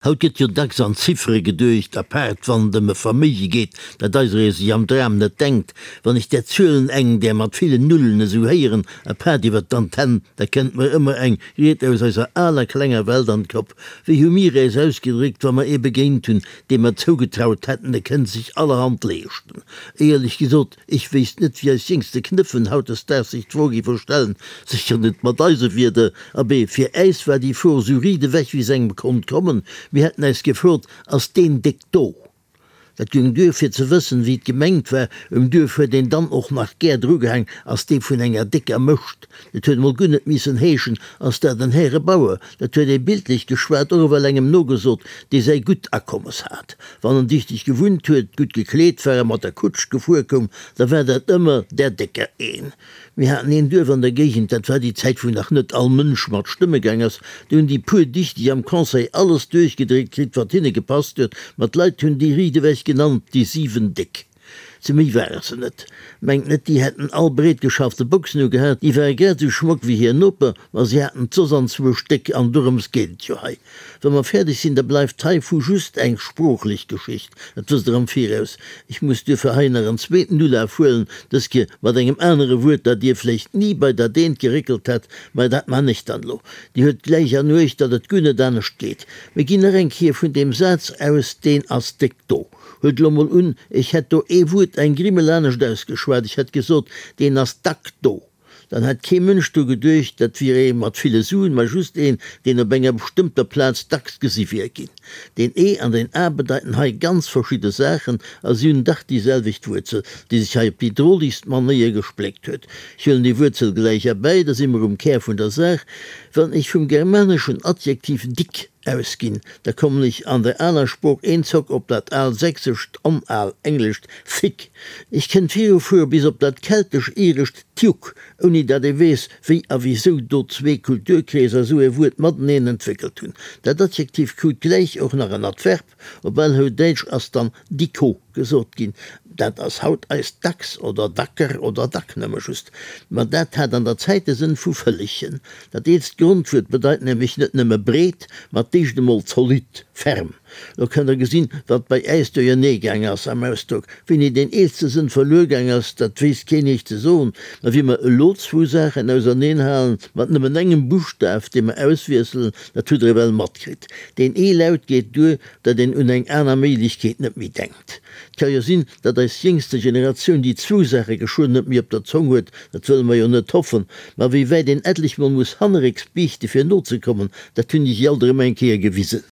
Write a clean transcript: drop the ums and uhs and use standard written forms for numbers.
Haut gëtt jo dacks an Ziffere geduecht, apaart wann et ëm e Verméige geet, dat eiseree sech am Dram net denkt. Wann ech där Zuelen, eng där mat villen Nullen, esou héieren, apaart iwwer d'Antenn, da kënnt mer ëmmer eng Ried aus eiser aler klenger Welt an d'Kopp. Wéi hu mir äis ausgedréckt, wa mer ee begéint hunn, deem mer zougetraut hätten, e kënnt sech allerhand leeschten? Éierlech gesot, Ech wéisst net, wéi eis jéngste Knëffen hautdesdaags sech d'Fro géife stellen, sécher net mat eise Wierder. Abee, fir äis war déi Fro sou riit ewech, wéi s'engem konnt kommen. Mir hätten äis gefrot, Ass deen déck do? Dat goung duer, fir ze wëssen, wéi et gemengt war. Um Duerf huet een dann och nach gär drugehaang, Ass dee vun enger décker Mëscht? Et huet emol guer net missen heeschen, Ass dat en Härebauer? Dat huet ee bildlech geschwat och ewell engem nogesot, dee säi gutt Akommes hat. Wann en dichteg gewunnt huet, gutt gekleet war a mat der Kutsch gefuer koum, da war dat ëmmer där Décker een. Mir haten een Duerf an der Géigend, dat war déi Zäit, wou nach net all Mënsch mat stëmme gaang ass, do hunn déi puer Dichteg am Conseil alles duerchgedréckt kritt, wat hinne gepasst huet, ma d'Leit hunn déi riitewech genannt, déi 7 Déck. Ze méi ware se net. Mengt net, déi hätten all breet geschaffte Boxen ugehat, déi ware grad esou schmock wéi hir Noper, ma si haten d'Soss an zwou Stéck, an dorëms geet et jo hei. Wa mer fäerdeg sinn, da bleift heivu just eng sproochlech Geschicht, dat wësst Der am Viraus. Ech muss duerfir hei nach en zweeten Ulaf huelen, dës Kéier mat engem anere Wuert, dat Dir vläicht ni bei der Deent geréckelt hätt, mä dat man ech dann elo. Dir huet gläich an Uecht, datt et guer net anescht geet. Mir ginn nach eng Kéier vun deem Saz aus, Deen ass déck do. Huelt elo mol un, ech hätt do ee Wuert eng Grimmel anescht ausgeschwat, ech hätt gesot, deen ass dack do. Dann hätt kee Mënsch dru geduecht, dat wier ee mat ville Suen, mä just een, deen op enger bestëmmter Plaz dacks gesi wier ginn. Deen e an deen a bedeiten hei ganz verschidde Saachen a si hunn dach déi selwecht Wuerzel, déi sech hei op déi drolegst Manéier gespléckt huet. Ech huelen déi Wuerzel gläich erbäi, da si mer um Kär vun der Saach. Wann ech vum germaneschen Adjektiv dick Ausginn, da kommen ech an der aler Sprooch eenzock op dat al sächsescht an al englescht thick. Ech kënnt virufuere bis op dat keltesch-irescht tiuc, ouni dat ee weess, wéi a wisou do zwee Kulturkreeser esou e Wuert mateneen entwéckelt hunn. Dat Adjektiv krut gläich och nach en Adverb, op Alhoudäitsch ass dann dicko gesot ginn. Dat ass haut eist dacks oder dacker oder dack nëmme just. Ma dat hat an der Zäit de Sënn vu Vëllchen. Dat eelst Grondwuert bedeit nämlech net nëmme breet, ma d'éischt emol zolidd, ferm. Lo kënnt der gesinn, wat bei äis duerjernee gaang ass am Ausdrock. Wéini deen eelste Sënn verluer gaang ass, dat weess keen Iech ze soen. Ma wéi mer elo zwou Saachen auserneen halen, mat nëmmen engem Buschtaf, dee mer auswiesselen, dat hutt der ewell matkritt. Deen ee Laut geet duer, datt een un eng aner Méiglechkeet net méi denkt. Et ka jo sinn, datt eis jéngste Generatioun déi zwou Saache geschwënn net méi op der Zong huet, dat wëlle mer jo net hoffen, ma wéi wäit een etlech mol muss hannerrécks biichte fir nozekommen, dat hunn déi sich alt erëm eng Kéier gewisen.